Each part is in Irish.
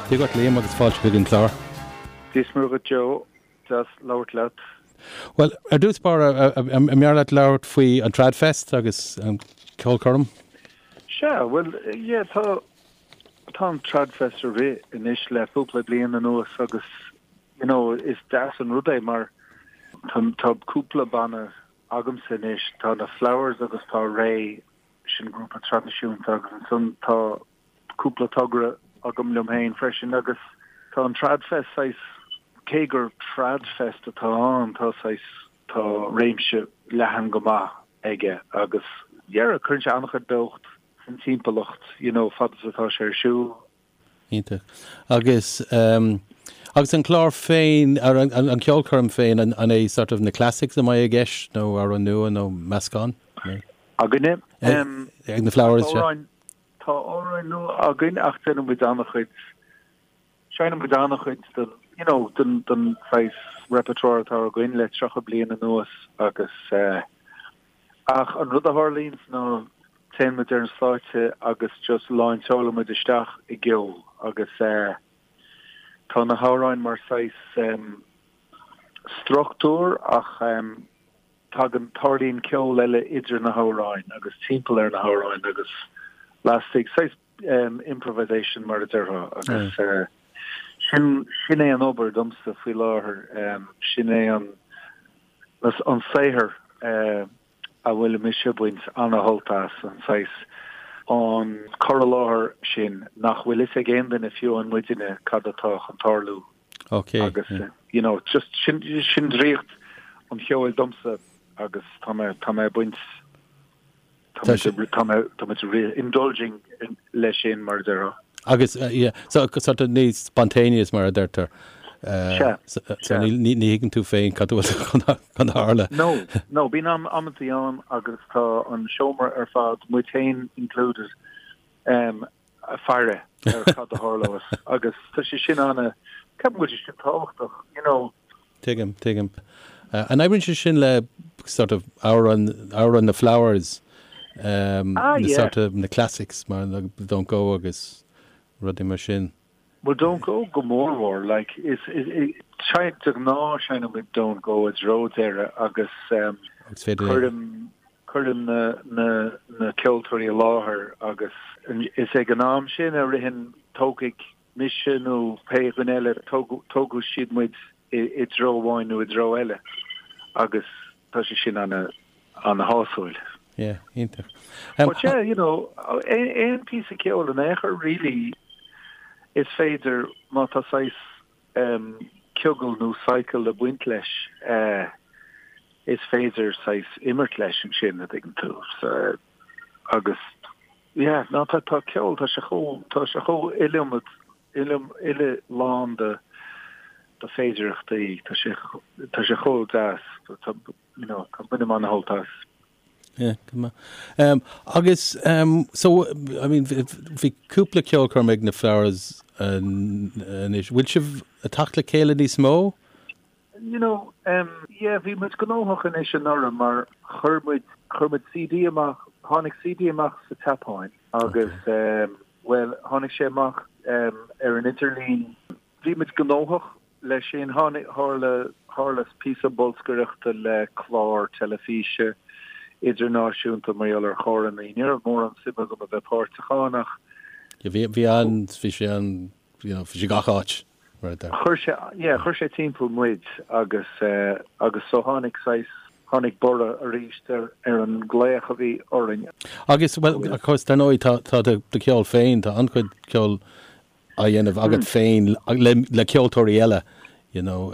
Dia dhuit Liam agus fáilte chuig an chlár. Dia is Muire dhuit Joe, deas labhairt leat. Bhuel, ar dtús báire, an mb'fhearr leat labhairt faoi an Tradfest agus an ceolchoirm? Sea, bhuel, yeah, tá, tá an Tradfest ag rith anois le cúpla bliain anuas agus, you know, is deas an rud é mar tá, tá cúpla banna agamsa anois, tá na Flowers agus tá Ré, sin grúpa traidisiúnta agus ansan tá cúpla togra agam liom féin freisin agus tá an Tradfest saghas, cé gur Tradfest atá ann, tá saghas, tá réimse leathan go maith aige agus yeah, cuireann sé an-chuid beocht san timpeallacht, you know, fad is atá sé ar siúl. Iontach. Agus agus an clár féin, an ceolchoirm féin, an é sort of na classics a mbeidh i gceist nó amhráin nua nó meascán? Againne? Ag na Flowers, sea. Tá amhráin nua againn ach déanann muid an-chuid, seinneann muid an-chuid den, you know, den, den saghas repertoire atá againn le 30 bliain anuas agus eh, ach an rud a tharlaíonns ná téann muid ar an stáitse agus just láinseálann muid isteach i gceol agus eh, tá na hamhráin mar saghas em, struchtúr ach em, Tagann, tarlaíonn ceol eile idir na hamhráin agus timpeall ar na hamhráin agus lastigh, saghas improvisation mar a déarfá agus sin, sin é an obair domsa faoi láthair, sin é an, an saothar a bhfuil mise ag baint ana-shult as, an saghas, an cur i láthair sin nach bhfuil fhios ag aon duine fiú amháin muidne cad atá chun tarlú. Ok. Agus, you know, just sin, sin draíocht an cheoil domsa agus tá mé, tá mé ag baint, tá mé, tá mé, tá mé really indulging leis sin mar a déarfá. Agus, yeah, so sort of níos spontaneous mar a deirtear. Sea, So sea. ní, ní, ní thuigeann tú féin cad atá chun, chun tarlú. No, no, bíonn am, amantaí ann agus tá an seomra ar fad, muid féin included, um, ag faire ar cad a tharlós agus tá sé sin ana, ceapaim go bhfuil sé sin tábhachtach, you know. Tuigim, tuigim. An oibríonn sé sin le sort of amhráin, amhráin na Flowers, um, Ah, na yeah. sort of, na classics mar Don't Go agus rudaí mar sin? Well Don't Go go mórmhór, like, is, is, is, de ghnáth seinneann muid Don't Go i dtreo deireadh agus um, Agus féidir cuirim, Cuirim na na ceoltóirí i láthair agus is ag an am sin a ritheann, tógfaidh mise nó pé dhuine eile, tógfaidh siad muid i dtreo amháin nó i dtreo eile agus tá sé sin ana ana-shásúil. Yeah, iontach. But yeah, you know, aon píosa ceoil in aon chor really is féidir má tá saghas ciogal nó cycle ag baint leis, is féidir saghas imirt leis ansin, a dtuigeann tú. So, agus, yeah, ná tá, tá ceol, tá sé chomh, tá sé chomh iliomad, iliom, uile lán de, de féidireachtaí, tá sé, tá sé chomh deas, tá, you know, tá, bainim ana-shult as. Yeah, go maith. Um, agus, um, so, I mean, bhí cúpla ceolchoirm ag na Flowers anois. Bhfuil sibh ag teacht le chéile níos mó? You know, um, yeah, bhí muid gnóthach anois anuraidh mar chuir muid, chuir muid CD amach, tháinig CD amach sa tSeapáin agus, um, well, tháinig sé amach um, ar an idirlíon. Bhí muid gnóthach Leis sin, tháinig, tharla, tharla píosa bolscaireachta le clár teilifíse idirnáisiúnta mar gheall ar charrannaí. Ní raibh mórán suim agam a bheith páirteach ann ach. Yeah, bhí, bhí an, bhí sé an, you know, bhí sé gach áit, mar a deir. Chuir sé, yeah, chuir sé timpeall muid agus, eh, agus so tháinig saghas, tháinig borradh arís ar, ar an nglaoch a bhí orainn. Agus, well, of course, dar ndóigh, tá, tá do, do cheol féin, tá an-chuid ceoil á dhéanamh agat féin le ceoltóirí eile, you know,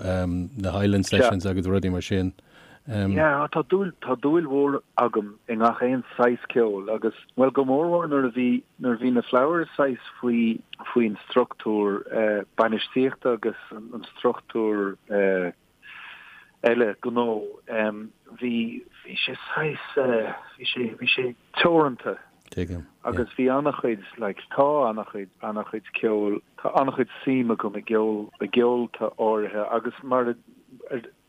na Highland Sessions agus rudaí mar sin. Yeah, tá dúil, tá dúil mhór agam i ngach aon saghas ceoil agus, bhuel, go mórmhór nuair a bhí, nuair a bhí na Flowers saghas faoi, faoin struchtúr bainistíochta agus an struchtúr eile gnó, bhí, bhí sé saghas, bhí sé, bhí sé teoranta. Tuigim. Agus bhí an-chuid, like, tá an-chuid, an-chuid ceoil, tá an-chuid suim agam i gceol, i gceolta áirithe agus mar,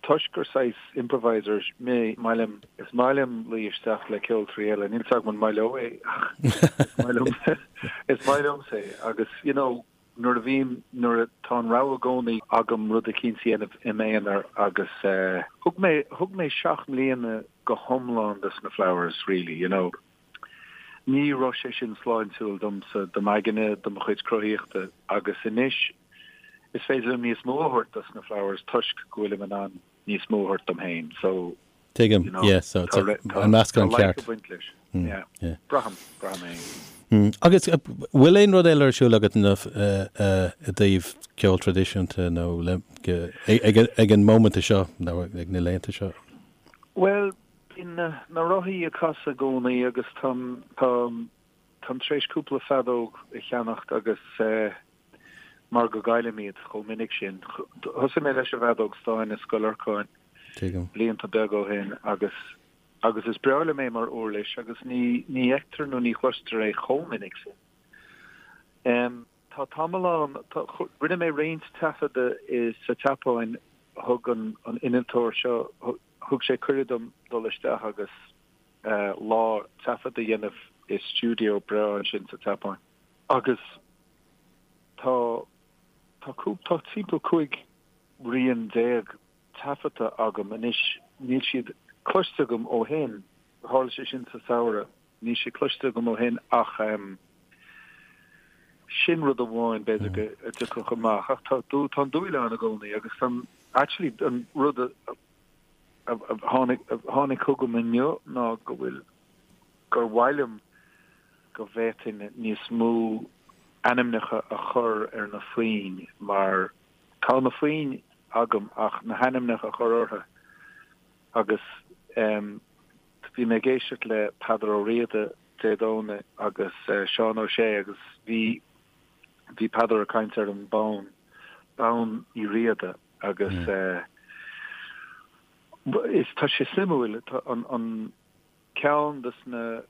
toisc gur saghas improviser mé, maith liom, is maith liom luí isteach le ceoltóirí eile, níl 's agam an maith leo é ach is maith liom, is maith liomsa é agus, you know. Nuair a bhím, nuair a, tá an rogha i gcónaí agam rud eicínt a dhéanamh i m'aonar agus eh, thug mé, thug mé seacht mbliana go hiomlán dos na Flowers really, you know. Ní raibh sé sin sláintiúil domsa, do m'aigne, do mo chuid cruthaíochta agus anois is féidir liom níos mó a thabhairt dos na Flowers toisc go bhfuilim in ann níos mó a thabhairt dom féin. So, Tuigim, you know, yeah, so tá an meascán ceart. Tá ag baint leis. Mm, yeah. yeah. Braithim, braithim é. Mm. Agus eh, bhfuil aon rud eile ar siúl agat i eh, dtaobh ceol traidisiúnta nó ag an móimint seo nó ag na laethanta seo? Well, bíonn na, na rothaí ag casadh i gcónaí agus táim, táim, táim tar éis cúpla feadóg a cheannacht agus eh, mar go gcaillim iad chomh minic sin. Thosaigh mé leis an bhfeadóg stáin i Scoil Lorcáin blianta beaga ó shin agus agus is breá liom é mar uirlis agus ní ní fheictear nó ní chloistear é chomh minic sin. Em, tá tamall ann, tá, rinne mé roinnt taifeadadh i sa tSeapáin, thug an an innealtóir seo, thug sé cuireadh dom dul isteach agus eh, lá taifead a dhéanamh i stiúideo breá ansin sa tSeapáin. Agus tá, tá cúp, tá timpeall 15 rian taifeadta agam anois. Níl siad cloiste agam ó shin, tharla sé sin sa samhradh, níl siad cloiste agam ó shin ach em sin rud amháin b'fhéidir go dtiocfadh amach ach tá tá an dúil ann i gcónaí agus tá actually an rud a a tháinig a tháinig chugam inniu ná go bhfuil gur mhaith liom go bhféadfainn níos mó ainmneacha a chur ar na foinn mar tá na foinn agam ach na hainmneacha a chur orthu agus em bhí mé ag éisteacht le Peadar Ó Riada Dé Domhnaigh agus Seán Ó Sé agus bhí bhí Peadar ag caint ar an bonn, bonn Uí Riada agus eh is tá sé suimiúil an an Ceann de na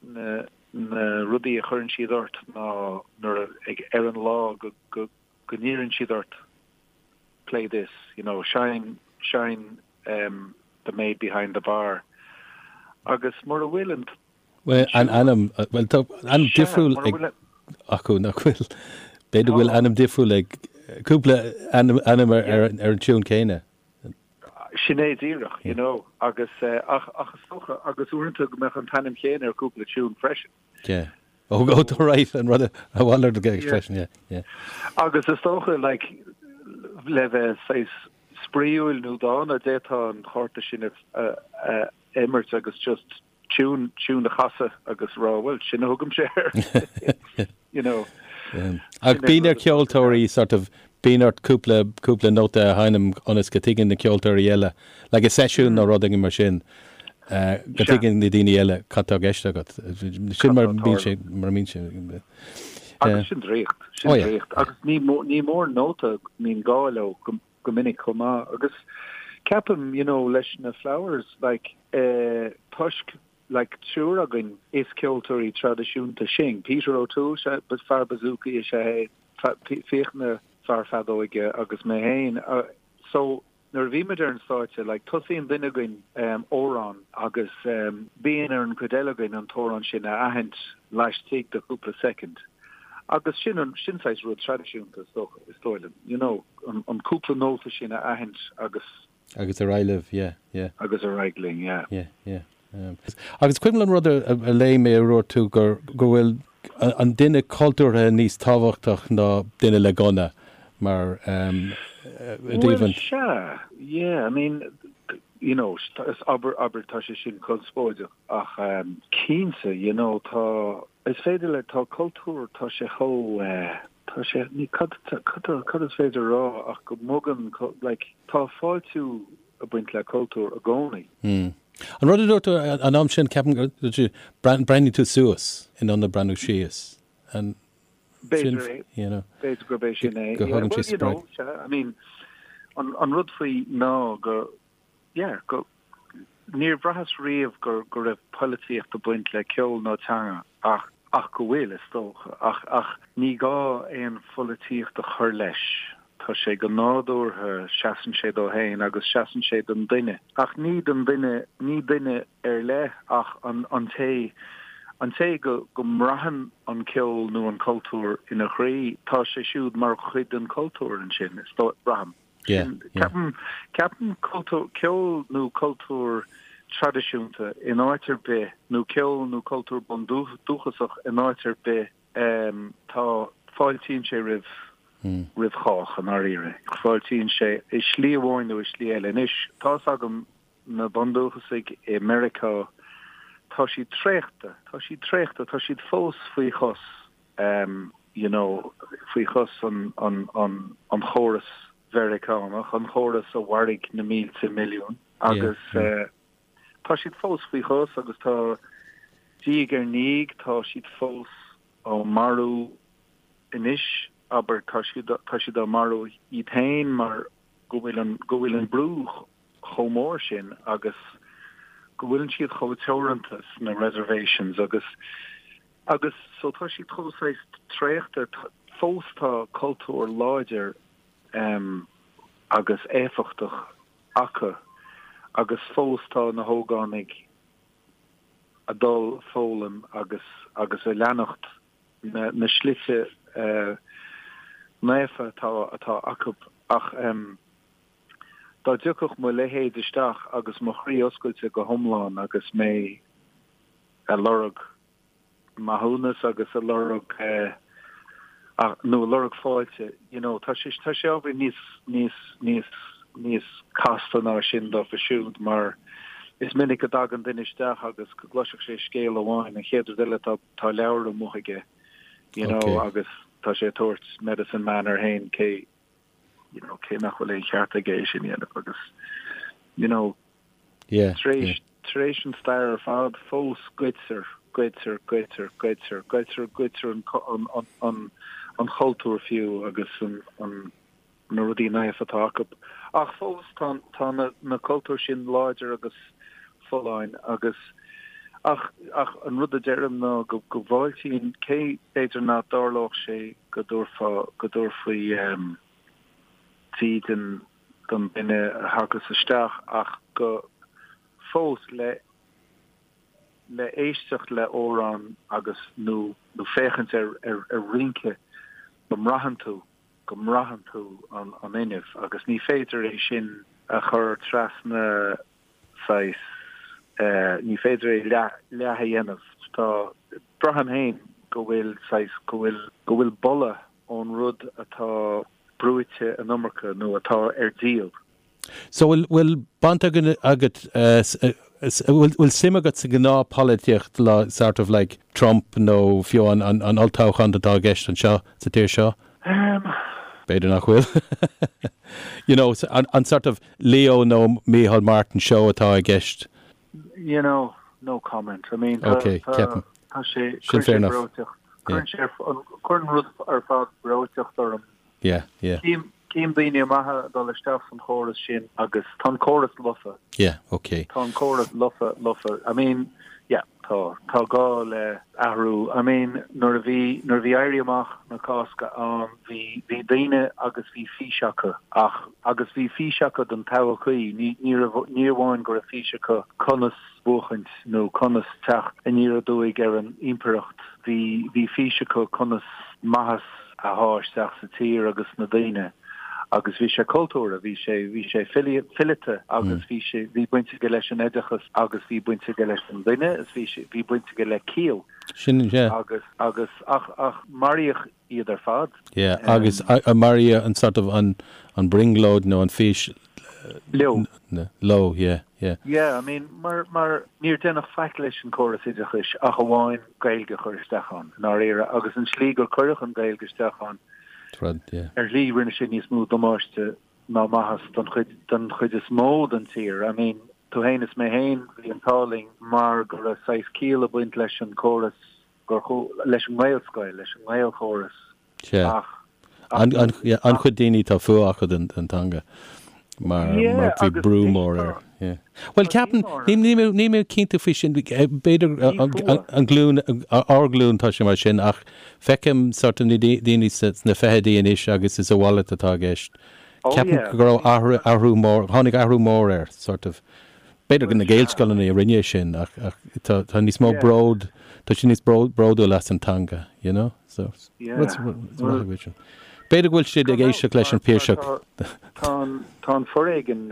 na na rudaí a chuireann siad ort ná nuair a ag ar an lá go go go n-iarrann siad ort play this, you know, seinn seinn um the maid behind the bar agus mura bhfuil an Bhuel, an ainm, bhuel tá ainm difriúil ag acu nach bhfuil? B'fhéidir go bhfuil ainm difriúil ag cúpla ainm ainm ar ar an tiún céanna. Sin é díreach, you know, agus ach ach is dócha, agus uaireanta go mbeadh an t-ainm chéanna ar cúpla tiún freisin. Yeah. Oh, oh, tá right, an rud a mhalairt i gceist freisin, yeah, yeah. Agus is dócha, like, le bheith saghas spraíúil nó dána, d'fhéadfá an cárta sin a a imirt agus just tiún, tiún a chasadh agus rá, bhuel, sin a thugaimse air, you know. Ach bíonn ar cheoltóirí sort of, bíonn ort cúpla, cúpla nóta a sheinm ionas go dtuigeann na ceoltóirí eile, like i seisiún nó rud éigin mar sin, go dtuigeann na daoine eile cad tá i gceist agat. Sin mar a bíonn sé, mar a bíonn sé. Agus sin draíocht, sin draíocht. Agus ní, ní mór nóta, mbíonn gá leo go, go minic chomh maith agus ceapaim you know leis na Flowers like eh toisc like triúr againn is ceoltóirí traidisiúnta sinn, Peter O'Toole sea fear bouzouki is ea é, Fiachna fear feadóige agus mé féin so nuair a bhímid ar an stáitse like tosaíonn duine againn amhrán agus bíonn ar an gcuid eile againn an t-amhrán sin a aithint laistigh de chúpla soicind. Agus sin an, sin saghas rud traidisiúnta is dócha, is dóigh liom, you know, an, an cúpla nóta sin a aithint agus. Agus ar aghaidh libh, yeah, yeah. Agus ar aghaidh linn, yeah. Yeah, yeah. Um, agus cuimhin liom rud a, a, a léigh mé a dúirt tú gur, go bhfuil an duine cultúrtha níos tábhachtach ná duine le gunna mar um, i dtaobh an. Well, sea, yeah, I mean, you know, is abair, abair, tá sé sin conspóideach ach um, cinnte, you know, tá, Is féidir le, tá cultúr, tá sé chomh, eh, tá sé, ní, cad, cad, cad is féidir a rá ach go mbogann, like, tá fáiltiú ag baint le cultúr i gcónaí. Mm. An rud a dúirt tú an am sin, ceapaim gur dúirt tú, breathnaigh tú suas in ionad breathnú síos. An sin, B'fhéidir é, you know, b'fhéidir gurb é sin é. Go thugann sé spreag. Well, you know, I mean, an, an rud faoi ná go, yeah, go, níor bhraitheas riamh go, go raibh poilitíocht ag baint le ceol nó teanga ach, ach go bhfuil, is dócha. Ach, ach ní gá aon pholaitíocht a chur leis. Tá sé go nádúrtha, seasann sé dó féin agus seasann sé don duine. Ach ní don duine, ní duine ar leith ach an, an té, An té go go mbraitheann an ceol nó an cultúr ina chroí, tá sé siúd mar chuid den chultúr ansin, is dóigh, braithim. Sin, ceapaim, ceapaim cultúr, ceol nó cultúr traidisiúnta in áit ar bith, nó ceol nó cultúr bundúchasach in áit ar bith, tá, fáiltíonn sé roimh, roimh chách, i ndáiríre. Fáiltíonn sé i slí amháin nó i slí eile. Anois, tá's agam na bundúchasaigh i Meiriceá, tá siad traochta, tá siad traochta, tá siad fós faoi chos, you know, faoi chos an, an, an, an chóras Mheiriceánach, an chóras a mharaigh na mílte milliún agus tá siad fós faoi chos agus tá diaidh ar ndiaidh, tá siad fós á marú anois, abair, tá siad, tá siad á marú iad féin mar go bhfuil an, go bhfuil an brú chomh mór sin agus go bhfuileann siad chomh teoranta sna reservations agus agus so tá siad chomh saghas traochta fós tá cultúr láidir em agus éifeachtach acu agus fós tá na hógánaigh a dul foghlaim agus agus a leanacht na na slite eh naofa atá atá acu ach em Dá dtiocfadh mo leithéid isteach agus mo chroí oscailte go hiomlán agus mé a lorg maithiúnas agus a lorg nó a lorg fáilte, you know, tá sé tá sé ábhairín níos níos níos níos casta ná sin dófa siúd mar is minic go dtagann duine isteach agus go gcloisfeadh sé scéal amháin, an chéad rud eile tá tá leabhar amuigh aige, you know, agus tá sé ag tabhairt medicine man air féin cé you know, cé nach bhfuil aon cheart aige é sin a dhéanamh agus, you know, yeah, tar éis, yeah. tar éis an stair ar fad fós goidtear, goidtear, goidtear, goidtear, goidtear, goidtear an, an, an, an, an chultúr fiú agus an, an, na rudaí naofa atá acu. Ach fós tá, tá na, na cultúir sin láidir agus folláin agus ach, ach an rud a deirim ná go, go bhfáiltíonn, cé b'fhéidir nach dtarlódh sé go dtabharfá, go dtabharfaí dídean don duine a thagas isteach ach go fós le le éisteacht le amhrán agus nó nó féachaint ar ar ar rince go mbraitheann tú go mbraitheann tú an an fhuinneamh agus ní féidir é sin a chur trasna saghas, ní féidir é leath, leath a dhéanamh. Tá, braithim féin go bhfuil saghas, go bhfuil, go bhfuil boladh ón rud atá brúite an iomarca nó atá ar díol. So bhfuil, bhfuil baint agat, bhfuil, bhfuil suim agat sa ghnáthpholaitíocht sort of like Trump nó fiú an, an, an olltoghchán atá i gceist anseo sa tír seo? B'fhéidir nach bhfuil. You know, an, an sort of Leo nó Micheál Martin show atá i gceist. You know, no comment. I mean, tá, Ok, tá, ceapaim. tá sé, Sin cuireann fair sé enough. breoiteacht, Yeah. cuireann sé, an, cuireann rud ar fad breoiteacht orm. Yeah, yeah. Cím, cím daoine maithe ag dul isteach san chóras sin agus tá an córas lofa. Yeah, ok. Tá an córas lofa, lofa. I mean, yeah, tá, tá gá le athrú. I mean, nuair a bhí, nuair a bhí Éirí Amach na Cásca ann, bhí, bhí daoine agus bhí fís acu ach, agus bhí fís acu don todhchaí. Ní, ní raibh, ní amháin go raibh fís acu conas buachaint nó conas teacht aniar aduaidh ar an impireacht, bhí, bhí fís acu conas maitheas a shá isteach sa tír agus sna daoine agus bhí sé cultúrtha, bhí sé, bhí sé fileata agus bhí sé, bhí baint aige leis an oideachas agus bhí baint aige leis an duine is bhí sé, bhí baint aige le ciall. Sin, yeah. Agus, agus, ach, ach maraíodh iad ar fad. Yeah, agus maraíodh an sort of an, an brionglóid nó an fís Leo. Leo, yeah, yeah. Yeah, I mean, mar, mar níor deineadh faic leis an córas oideachais ach amháin Gaeilge a chur isteach ann, i ndáiríre, agus an slí gur cuireadh an Ghaeilge isteach ann, Rud, yeah. ar shlí rinne sé níos mó damáiste ná maitheas don chuid, don chuid is mó den tír. I mean, tú fhéin is mé fhéin, bhí an t-ádh linn mar go raibh saghas ciall ag baint leis an córas, gur, leis an nGaelscoil, leis an nGaelchóras, Sea. Ach, An-chuid daoine tá fuath acu don teanga mar bhí brú mór air. Bhuel, ceapaim, níl mé cinnte faoi sin, b'fhéidir an glúin, ár nglúin tá sé mar sin ach feicim sort of na daoine sna fichidí anois agus is a mhalairt atá i gceist. Ceapaim go raibh athrú mór, tháinig athrú mór air sort of. B'fhéidir gur na Gaelscoileanna a rinne é sin ach tá níos mó bród. Tá siad níos bródúil as an teanga, you know? So, Yeah. rud maith sin. B'fhéidir go bhfuil siad ag éisteacht leis an Piarsach. Tá tá an foréigean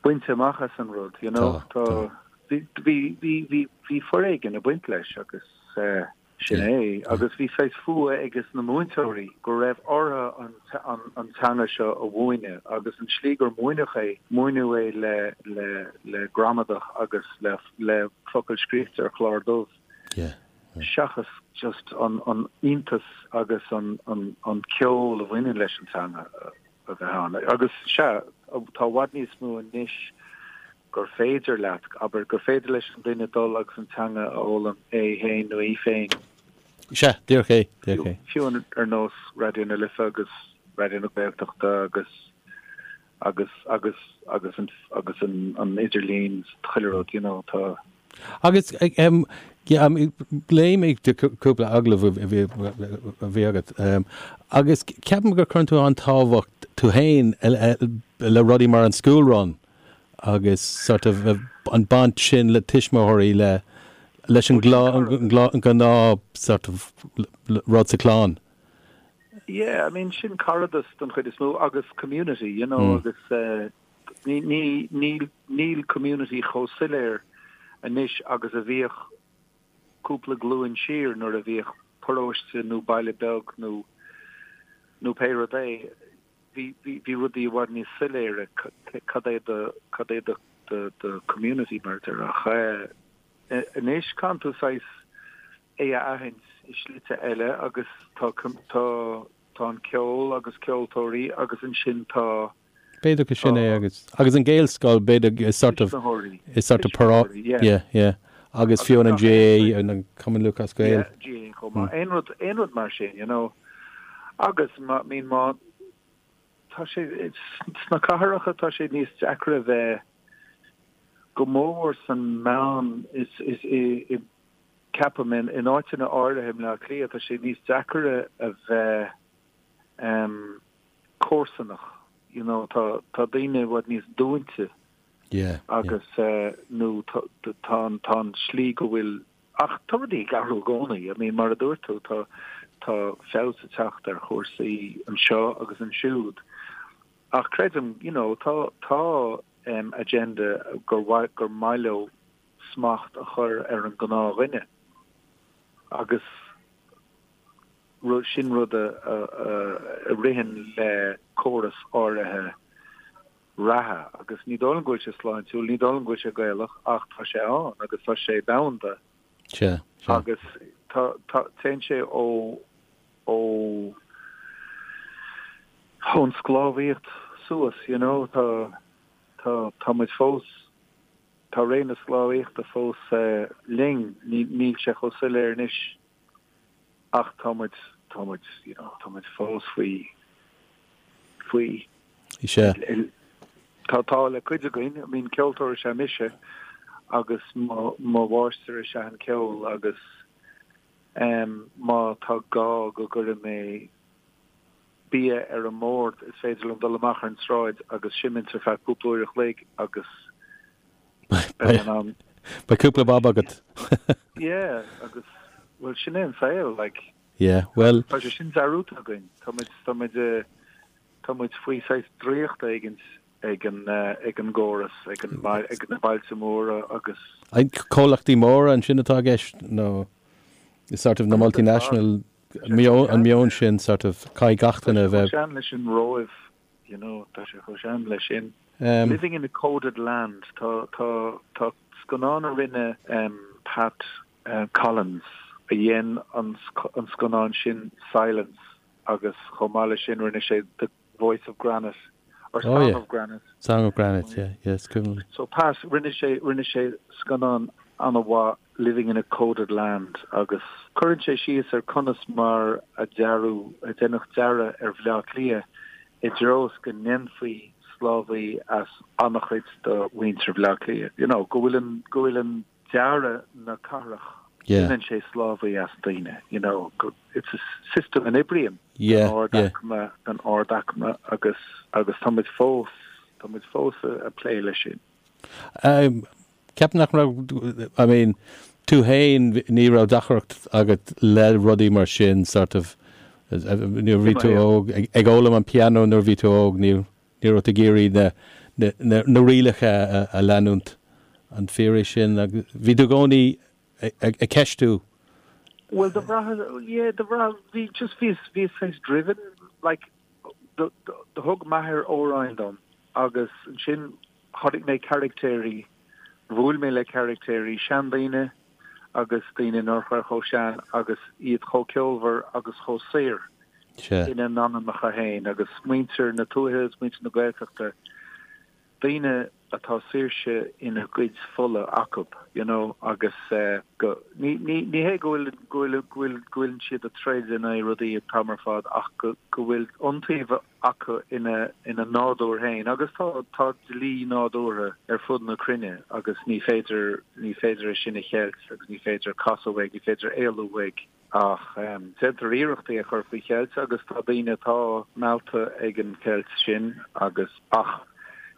bainte amach as an rud, you know? Tá bhí bhí bhí bhí foréigean ag baint leis agus sin é. Agus bhí saghas fuath ages na múinteoirí go raibh orthu an an an teanga seo a mhúineadh agus an slí gur múineadh é, múineadh é le le le gramadach agus le le focail scríofa ar chlár dubh seachas just an an iontas agus an an an ceol a bhaineann leis an teanga a bheith ann. Agus sea, tá i bhfad níos mó anois gur féidir leat, abair, gur féidir leis an duine dul agus an teanga a fhoghlaim é féin nó í féin. Sea, díreach é, díreach é. Fiú ar nós Raidió na Life agus Raidió na Gaeltachta agus agus agus agus an agus an an idirlíon chuile rud, you know, tá. Agus em yeah, léigh mé cúpla agallamh a bhí a bhí agat agus ceapaim gur cuireann tú an-tábhacht tú féin le rudaí mar an school run agus sort of an baint sin le tuismitheoirí le leis an gnáth sort of rud sa chlann. Yeah, I mean sin caradas don chuid is mó agus community, you know, agus eh, ní ní níl níl community chomh soiléir anois agus a bhíodh cúpla glúin siar nuair a bhíodh paróiste nó baile beag nó nó pé rud é. Bhí bhí bhí rudaí i bhfad níos soiléire cad é do cad é do do do community mar a déarfá ach eh anois caitheann tú saghas é a aithint i slite eile agus tá tá tá an ceol agus ceoltóirí agus ansin tá B'fhéidir go sin é agus agus an Gaelscoil b'fhéidir is sort of is sort of pará yeah yeah agus fiú an GAA an Cumann Lúthchleas Gael. Yeah GAA chomh maith. Aon rud aon rud mar sin you know agus má I mean má tá sé sna cathracha tá sé níos deacra bheith go mór san meán is is i i Ceapaim, in áiteanna áirithe i mBleá Cliath, tá sé níos deacaire a bheith comharsanach, you know, tá tá daoine i bhfad níos dúinte agus nó tá tá tá an slí go bhfuil, ach tá rudaí ag athrú i gcónaí, I mean mar a dúirt tú, tá tá feabhas ag teacht ar chúrsaí anseo agus ansiúd ach creidim, you know, tá tá agenda gur mhaith gur maith leo smacht a chur ar an ngnáthdhuine agus sin rud a ritheann le córas áirithe reatha agus ní dóigh liom go bhfuil sé sláintiúil, ní dóigh liom go bhfuil sé Gaelach ach tá sé ann agus tá sé domhanda agus tá, tá, téann sé ó, ó, ón sclábhaíocht suas, you know, tá, tá, tá muid fós. Tá ré na sclábhaíochta fós linn, níl sé chomh soiléir anois ach tá muid, tá muid, you know, tá muid fós faoi, faoi. Sea. Tá, tá le cuid againn, I mean ceoltóir is ea mise agus mo, mo mháistir is ea an ceol agus em má tá gá go gcuirfidh mé bia ar an mbord, is féidir liom dul amach ar an tsráid agus seimint ar feadh cúpla uair a chloig agus beidh in ann. Beidh cúpla bob agat. Yeah, agus, bhuel, sin é an saol, like. Yeah, bhuel. Tá sé sin dearúdta againn. Tá muid, tá muid, tá muid faoi saghas draíocht éigint ag an, ag an gcóras, ag an, ag na bailte móra agus. Comhlachtaí móra ansin atá i gceist nó sort of na multinational an meon sin sort of caithfidh gach duine a bheith. Tá sé chomh sean leis an Róimh, you know, tá sé chomh sean leis sin. Living in a coded land, tá, tá, tá scannán a rinne Pat Collins a dhein an scannán sin Silence agus chomh maith leis sin rinne sé The Voice of Granite or Song oh, yeah. of Granite. Song of Granite, yeah, yeah, is cuimhin liom. So Pat, rinne sé, rinne sé scannán an-mhaith Living in a Coded Land agus cuireann sé síos ar conas mar a dearadh, a deineadh dearadh ar Bhleá Cliath i dtreo is go ndéanfaí sclábhaí as an-chuid de mhuintir Bhleá Cliath. You know, go bhfuil an, go bhfuil an dearadh na cathrach, déanann sé sclábhaí as daoine, you know, it's a system a n-oibríonn don ardaicme, don ardaicme agus agus tá muid fós, tá muid fós ag plé leis sin. Ceapaim nach raibh, I mean, tú féin, ní raibh deacracht agat le rudaí mar sin, sort of, nuair a bhí tú óg, ag fhoghlaim an pianó nuair a bhí tú óg, ní ní raibh tú ag iarraidh na na na rialacha a leanúint. An fíor é sin? Agus bhí tú i gcónaí ag ceistiú. Bhuel, do bhraith, yeah, do bhraith, bhí, just bhíos, bhíos saghas driven, like, do, do, do thug m'athair amhráin dom agus ansin chonaic mé caractéirí, bhuail mé le caractéirí, seandaoine agus daoine nach raibh chomh sean agus iad chomh ceolmhar agus chomh saor ina n-anamacha féin agus muintir na tuaithe is muintir na Gaeltachta, daoine atá saoirse ina gcuid fola acu, you know, agus go, ní, ní, ní hé go bhfuil, go bhfuil, go bhfuil, go bhfuileann siad ag troid in aghaidh rudaí an t-am ar fad ach go, go bhfuil iontaoibh acu ina, ina nádúr féin agus tá, tá dlí nádúrtha ar fud na cruinne agus ní féidir, ní féidir é sin a cheilt agus ní féidir casadh uaidh, ní féidir éalú uaidh. Ach déantar iarracht é a chur faoi cheilt agus tá daoine atá meallta ag an cheilt sin agus, ach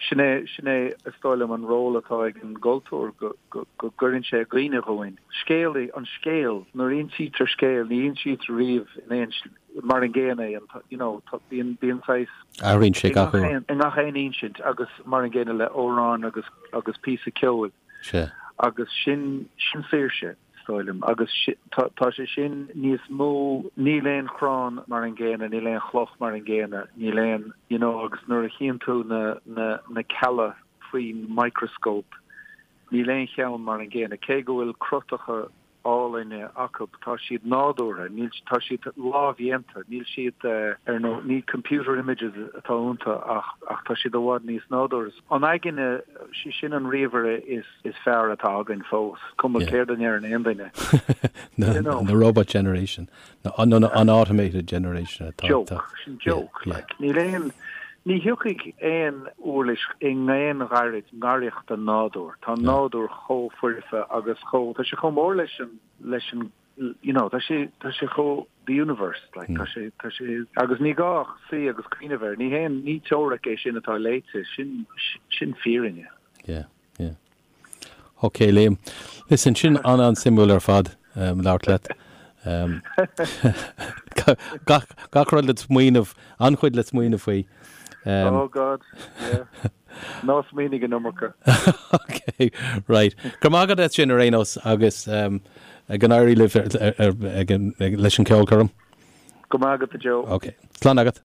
sin é, sin é is dóigh liom an ról atá ag an gcultúr, go, go, go gcuireann sé i gcuimhne dhúinn. Scéal, an scéal, nuair a insítear scéal, ní insítear riamh in aon, mar an gcéanna é, an, you know, tá, bíonn, bíonn saghas. Athraíonn sé gach uair. I ngach aon insint agus mar an gcéanna le amhrán agus, agus píosa ceoil. Sea. Agus sin, sin saoirse. is dóigh liom. Agus tá sé sin níos mó, níl aon chrann mar an gcéanna, níl aon chloch mar an gcéanna, níl aon, you know, agus nuair a chíonn tú na, na, na cealla faoin microscope, níl aon cheann mar an gcéanna. Cé go bhfuil cruthacha álainne acu, tá siad nádúrtha, níl, tá siad lámhdhéanta, níl siad ar nó, ní computer images atá iontu ach, ach tá siad i bhfad níos nádúrtha. An aigne, sí sin an ríomhaire is. is fearr atá againn fós, cuma céard a ndeireann aon duine. You know. The robot generation, nó an automated generation atá. Joke, sin joke. Like, níl aon, ní thiocfaidh aon uirlis i ngaon ghairid ngaireacht don nádúr. Tá an nádúr chomh foirfe agus chomh, tá sé chomh mór leis an, leis an, you know, tá sé, tá sé chomh, the universe, like, tá sé, tá sé, agus ní gá ach suí agus cuimhneamh air, ní haon, ní teoiric é sin atá léite, sin, sin fírinne. Yeah. Yeah. Ok, Liam. Listen, sin an-an-suimiúil ar fad um, labhairt leat. Um, gach, gach rud le smaoineamh, an-chuid le smaoineamh faoi. Um, oh God, yeah. Ná smaoinigh an iomarca. Ok, right. Go raibh maith agat as sin ar aon nós agus um, go n-éirí libh ar, ar, ar, ag, ag, leis an ceolchoirm. Go maith agat a Joe. Ok. Slán agat.